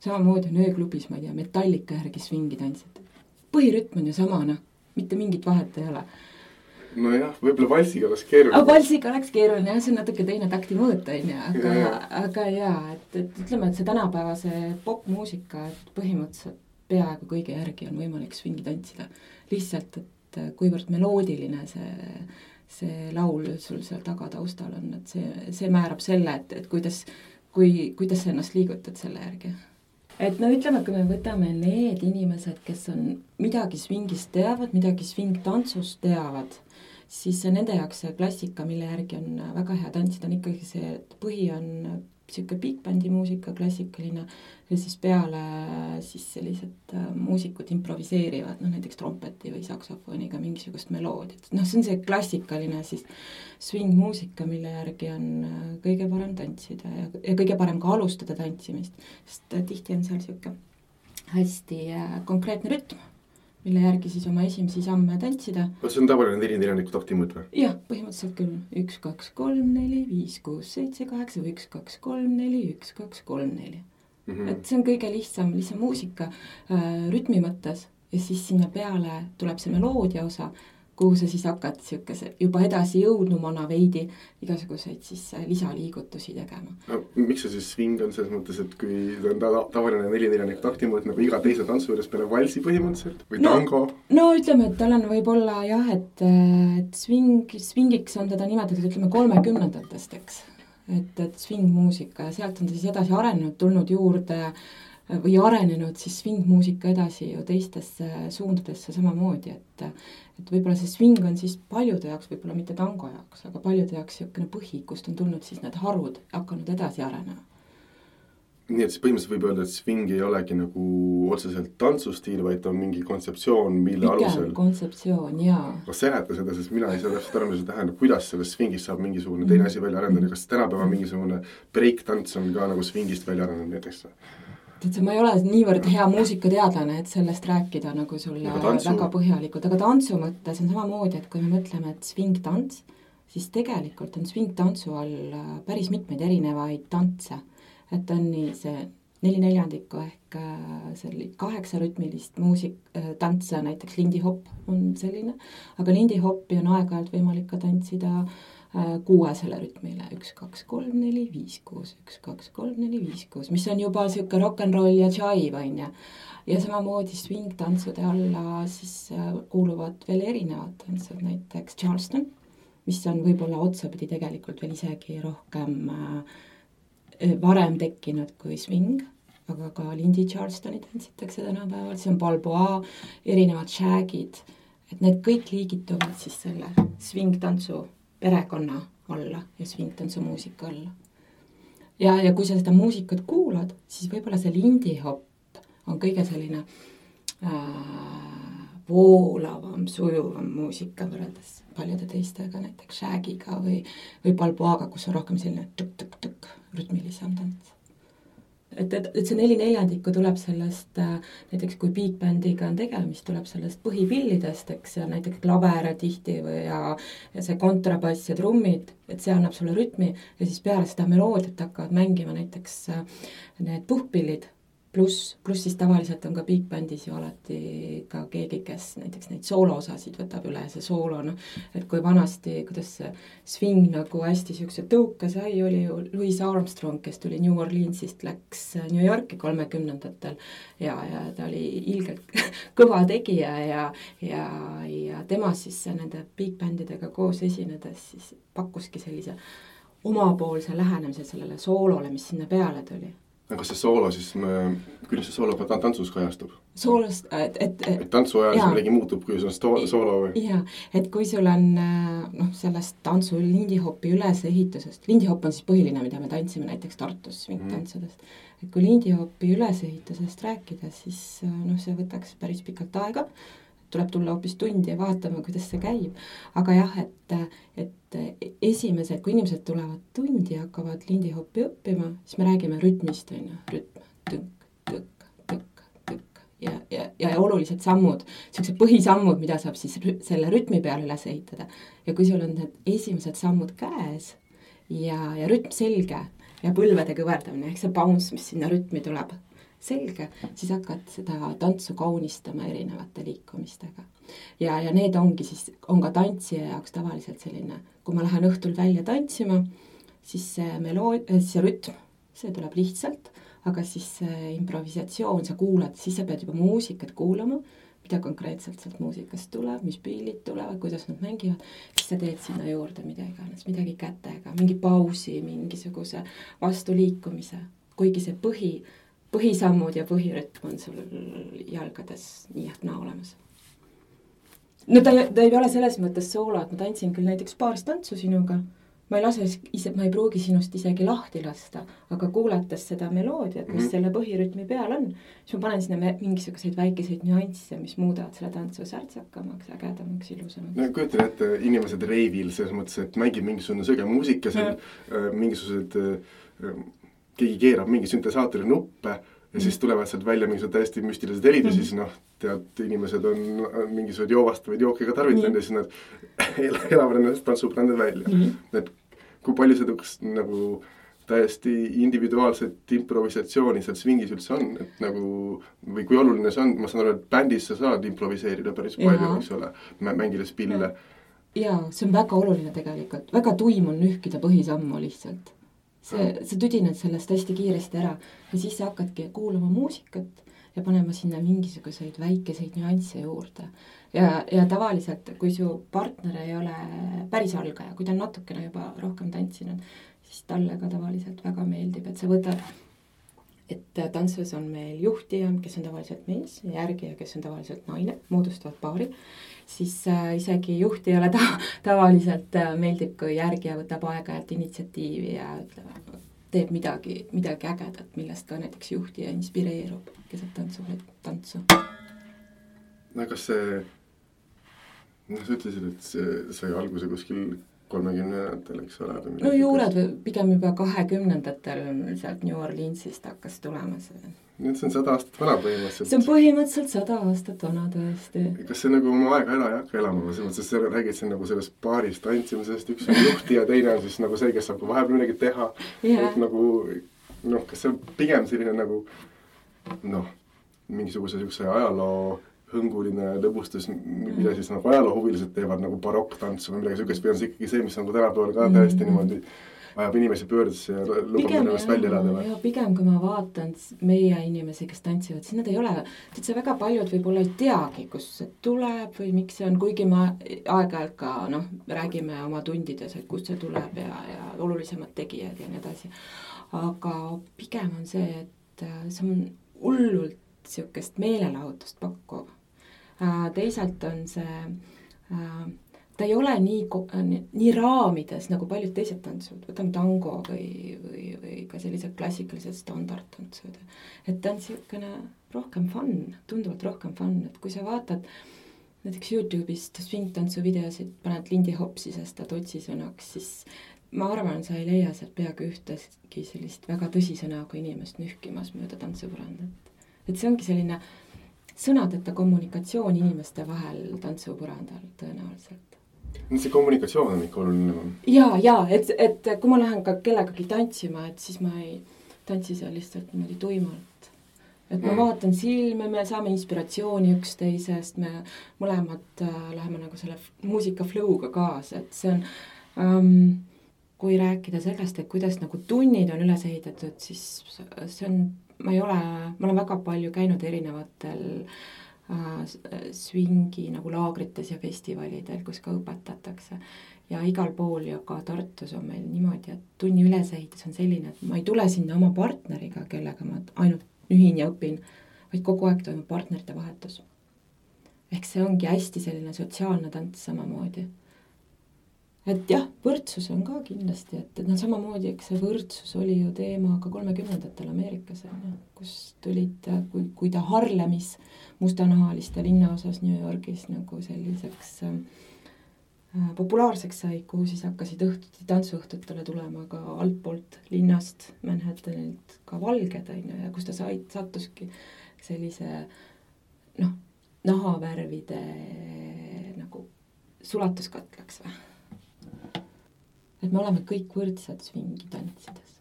Samamoodi on ööklubis, ma ei tea, Metallica järgi swingi tantsid. Põhirütm on ju sama, mitte mingit vahet ei ole. Nojah, võib-olla valsiga oleks keeruline. Valsiga oleks keeruline, see on natuke teine takti mõõt, aga jaa, et ütleme, et see tänapäevase popmuusika, et põhimõtteliselt peaaegu kõige järgi on võimalik swingi tantsida. Lihtsalt, et kuivõrd meloodiline see laul sul seal tagataustal on, et see määrab selle, et kuidas sa ennast liigutad selle järgi. Et no ütleme, kui me võtame need inimesed, kes on midagi swingist teavad, midagi swing-tantsust teavad, siis nende jaoks see klassika, mille järgi on väga hea tantsida, on ikkagi see, et põhi on siuke big bandi muusika, klassikaline, ja siis peale siis sellised muusikud improviseerivad, näiteks trompeti või saksofoniga mingisugust meloodiat. See on see klassikaline siis swing-muusika, mille järgi on kõige parem tantsida ja kõige parem ka alustada tantsimist, sest tihti on seal siuke hästi konkreetne rütm, mille järgi siis oma esimesi samme tantsida. See on tavaline 4-4 takti mõõt või? Jah, põhimõtteliselt küll. 1, 2, 3, 4, 5, 6, 7, 8, 1, 2, 3, 4, 1, 2, 3, 4. Et see on kõige lihtsam muusika rütmi mõttes ja siis sinna peale tuleb see meloodia osa, kuhu sa siis hakkad juba edasi jõudnumana veidi igasuguseid siis lisaliigutusi tegema. No, miks see siis swing on selles mõttes, et kui on tavaline 4-4 takti mõõt nagu iga teise tantsu juures peale valsi põhimõtteliselt või tango? No ütleme, et tal on võib-olla jah, et swingiks on teda nimetatud, ütleme 30-ndatest, eks. Et swing-muusika ja sealt on ta siis edasi arenenud, tulnud juurde või arenenud siis swing-muusika edasi ju teistesse suundadesse samamoodi, et võib-olla see swing on siis paljude jaoks, võib-olla mitte tango jaoks, aga paljude jaoks siukene põhi, kust on tulnud siis need harud hakanud edasi arenema. Nii et siis põhimõtteliselt võib öelda, et swing ei olegi nagu otseselt tantsustiil, vaid on mingi kontseptsioon, mille alusel... Pigem kontseptsioon, jaa. Kas seleta seda, sest mina ei saa täpselt aru, mis see tähendab, kuidas sellest swingist saab mingisugune teine asi välja arendada, kas tänapäeva mingisugune break-tants on ka nagu swingist välja arendanud näiteks? Ma ei ole niivõrd hea muusikateadlane, et sellest rääkida nagu sulle väga põhjalikult, aga tantsu mõttes on samamoodi, et kui me mõtleme, et swing-tants, siis tegelikult on swing-tantsu all päris mitmeid erinevaid tantse. Et on nii see 4/4 ehk 8 rütmilist tantse, näiteks lindihopp on selline, aga lindihoppi on aeg-ajalt võimalik ka tantsida 6 rütmile, 1, 2, 3, 4, 5, 6, 1, 2, 3, 4, 5, 6, mis on juba siuke rock'n'roll ja jive, on ja. Ja samamoodi swing-tantsude alla siis kuuluvad veel erinevad tantsud, näiteks Charleston, mis on võib-olla otsapidi tegelikult veel isegi rohkem varem tekkinud kui swing, aga ka Lindy Charlestoni tantsitakse tänapäeval, see on balboa, erinevad shagid, et need kõik liigituvad siis selle swing-tantsu perekonna alla ja swing-tantsu muusika alla. Ja kui sa seda muusikat kuulad, siis võib-olla see lindihopp on kõige selline voolavam, sujuvam muusika võrreldes paljude teistega, näiteks shagiga või balboaga, kus on rohkem selline tuk-tuk-tuk rütmilisem tants. Et see 4/4 tuleb sellest, näiteks kui big bandiga on tegemist, tuleb sellest põhipillidest, eks, ja näiteks klaver tihti ja see kontrabass ja trummid, et see annab sulle rütmi ja siis peale seda meloodiat hakkavad mängima näiteks need puhkpillid, pluss siis tavaliselt on ka big bandis ju alati ka keegi, kes näiteks neid sooloosasid võtab üle, see soolo, et kui vanasti, kuidas see swing nagu hästi siukse tõuka sai, oli ju Louis Armstrong, kes tuli New Orleansist, läks New Yorki 30-ndatel ja ta oli ilgelt kõva tegija ja tema siis nende big bandidega koos esinedes siis pakkuski sellise omapoolse lähenemise sellele soolole, mis sinna peale tuli. Kas see soolo siis, kuidas see soolo tantsus kajastub? Soolost, et tantsu ajal see midagi muutub, kui see on soolo või? Jaa, et kui sul on sellest tantsu lindihopi ülesehitusest, lindihopp on siis põhiline, mida me tantsime näiteks Tartus swing-tantsudest, et kui lindihopi ülesehitusest rääkida, siis see võtaks päris pikalt aega, tuleb tulla hoopis tundi ja vaatama, kuidas see käib. Aga jah, et esimesed, kui inimesed tulevad tundi ja hakkavad lindihoppi õppima, siis me räägime rütmist, rütm, tõnk, tõk, tõk, tõk ja olulised sammud, sellised põhisammud, mida saab siis selle rütmi peale üles ehitada. Ja kui sul on need esimesed sammud käes ja rütm selge ja põlvede kõverdamine, ehk see bounce, mis sinna rütmi tuleb, selge, siis hakkad seda tantsu kaunistama erinevate liikumistega. Ja need ongi siis, on ka tantsija jaoks tavaliselt selline, kui ma lähen õhtul välja tantsima, siis see rütm, see tuleb lihtsalt, aga siis see improvisatsioon, sa kuulad, siis sa pead juba muusikat kuulama, mida konkreetselt sealt muusikast tuleb, mis pillid tulevad, kuidas nad mängivad, siis sa teed sinna juurde midagi kätega, mingi pausi, mingisuguse vastuliikumise, kuigi see põhisammud ja põhirütm on sul jalgades nii ehk naa olemas. No ta ei ole selles mõttes soolo, et ma tantsin küll näiteks paaristantsu sinuga, ma ei pruugi sinust isegi lahti lasta, aga kuulates seda meloodiat, mis selle põhirütmi peal on, siis ma panen sinna mingisuguseid väikeseid nüansse, mis muudavad selle tantsu särtsakamaks, ägedamaks, ilusamaks. No kujutan ette inimesed reivil selles mõttes, et mängib mingisugune sõge muusika, keegi keerab mingi süntesaatori nuppe ja siis tulevad sealt välja mingisugused täiesti müstilised helid ja siis tead, inimesed on mingisugused joovastavaid jooke ka tarvitanud ja siis nad elavad ennast tantsuprändid välja. Et kui palju seda nagu täiesti individuaalset improvisatsiooni seal swingis üldse on, et nagu, või kui oluline see on, ma saan aru, et bändis sa saad improviseerida päris palju, eks ole, mängides pille. Jaa, see on väga oluline tegelikult, väga tuim on nühkida põhisammu lihtsalt. Sa tüdined sellest hästi kiiresti ära ja siis sa hakkadki kuulama muusikat ja panema sinna mingisuguseid väikeseid nüansse juurde. Ja tavaliselt, kui su partner ei ole päris algaja, kui ta on natukene juba rohkem tantsinud, siis talle ka tavaliselt väga meeldib, et sa võtad, et tantsus on meil juhtija, kes on tavaliselt mees, järgija, kes on tavaliselt naine, moodustavad paari, siis isegi juhtijale tavaliselt meeldib, kui järgija võtab aega-ajalt initsiatiivi ja teeb midagi ägedat, millest ka näiteks juhtija inspireerub, kes saab tantsu. No kas see, sa ütlesid, et see sai alguse kuskil 30-ndatel, eks ole? No juured pigem juba 20-ndatel sealt New Orleansist hakkas tulema see. Nüüd see on 100 aastat vana põhimõtteliselt. See on põhimõtteliselt 100 aastat vana tõesti. Kas see nagu oma aega ei hakka elama? Sest sa räägid siin nagu sellest paarist tantsimisest, üks on juhti ja teine on siis nagu see, kes saab vahepeal midagi teha. Et nagu, kas see on pigem selline nagu mingisuguse ajaloo hõnguline lõbustus, mida siis nagu ajaloohuvilised teevad nagu barokktantsu või midagi sükest, või on see ikkagi see, mis on tänapäeval ka täiesti niimoodi ajab inimesi pöördesse ja lubab ennast välja elada või? Pigem, kui ma vaatan meie inimesi, kes tantsivad, siis nad ei ole, see väga paljud võib-olla ei teagi, kus see tuleb või miks see on, kuigi ma aeg-ajalt ka räägime oma tundides, et kust see tuleb ja olulisemad tegijad ja nii edasi. Aga pigem on see, et see on hullult niisugust meelelahutust pakkuv. Teisalt on see, ta ei ole nii raamides nagu paljud teised tantsud, võtame tango või ka sellised klassikalised standardtantsud. Et ta on niisugune rohkem fun, tunduvalt rohkem fun, et kui sa vaatad näiteks YouTube'ist swing-tantsu videosid, paned Lindy Hopsi sest otsisõnaks, siis ma arvan, sa ei leia sealt peaaegu ühtegi sellist väga tõsisõnaga inimest nühkimas mööda tantsupõrandat. Et see ongi selline sõnadeta kommunikatsioon inimeste vahel tantsupõrandal tõenäoliselt. See kommunikatsioon on ikka oluline. Jaa, et kui ma lähen ka kellegagi tantsima, et siis ma ei tantsi seal lihtsalt niimoodi tuimalt. Et ma vaatan silme, me saame inspiratsiooni üksteisest, me mõlemad läheme nagu selle muusika flow'ga kaasa, et see on, kui rääkida sellest, et kuidas nagu tunnid on üles ehitatud, siis see on, ma olen väga palju käinud erinevatel swingi nagu laagrites ja festivalidel, kus ka õpetatakse. Ja igal pool ja ka Tartus on meil niimoodi, et tunni ülesehitus on selline, et ma ei tule sinna oma partneriga, kellega ma ainult nühin ja õpin, vaid kogu aeg toimub partnerite vahetus. Ehk see ongi hästi selline sotsiaalne tants samamoodi. Et jah, võrdsus on ka kindlasti, et samamoodi, eks see võrdsus oli ju teema ka 30-ndatel Ameerikas, kus tulid, kui ta Harlemis mustanahaliste linnaosas New Yorgis nagu selliseks populaarseks sai, kuhu siis hakkasid tantsuõhtutele tulema ka altpoolt linnast, Manhattanilt ka valged, ja kus ta sattuski sellise nahavärvide nagu sulatuskatlaks või? Et me oleme kõik võrdsed swingi tantsides.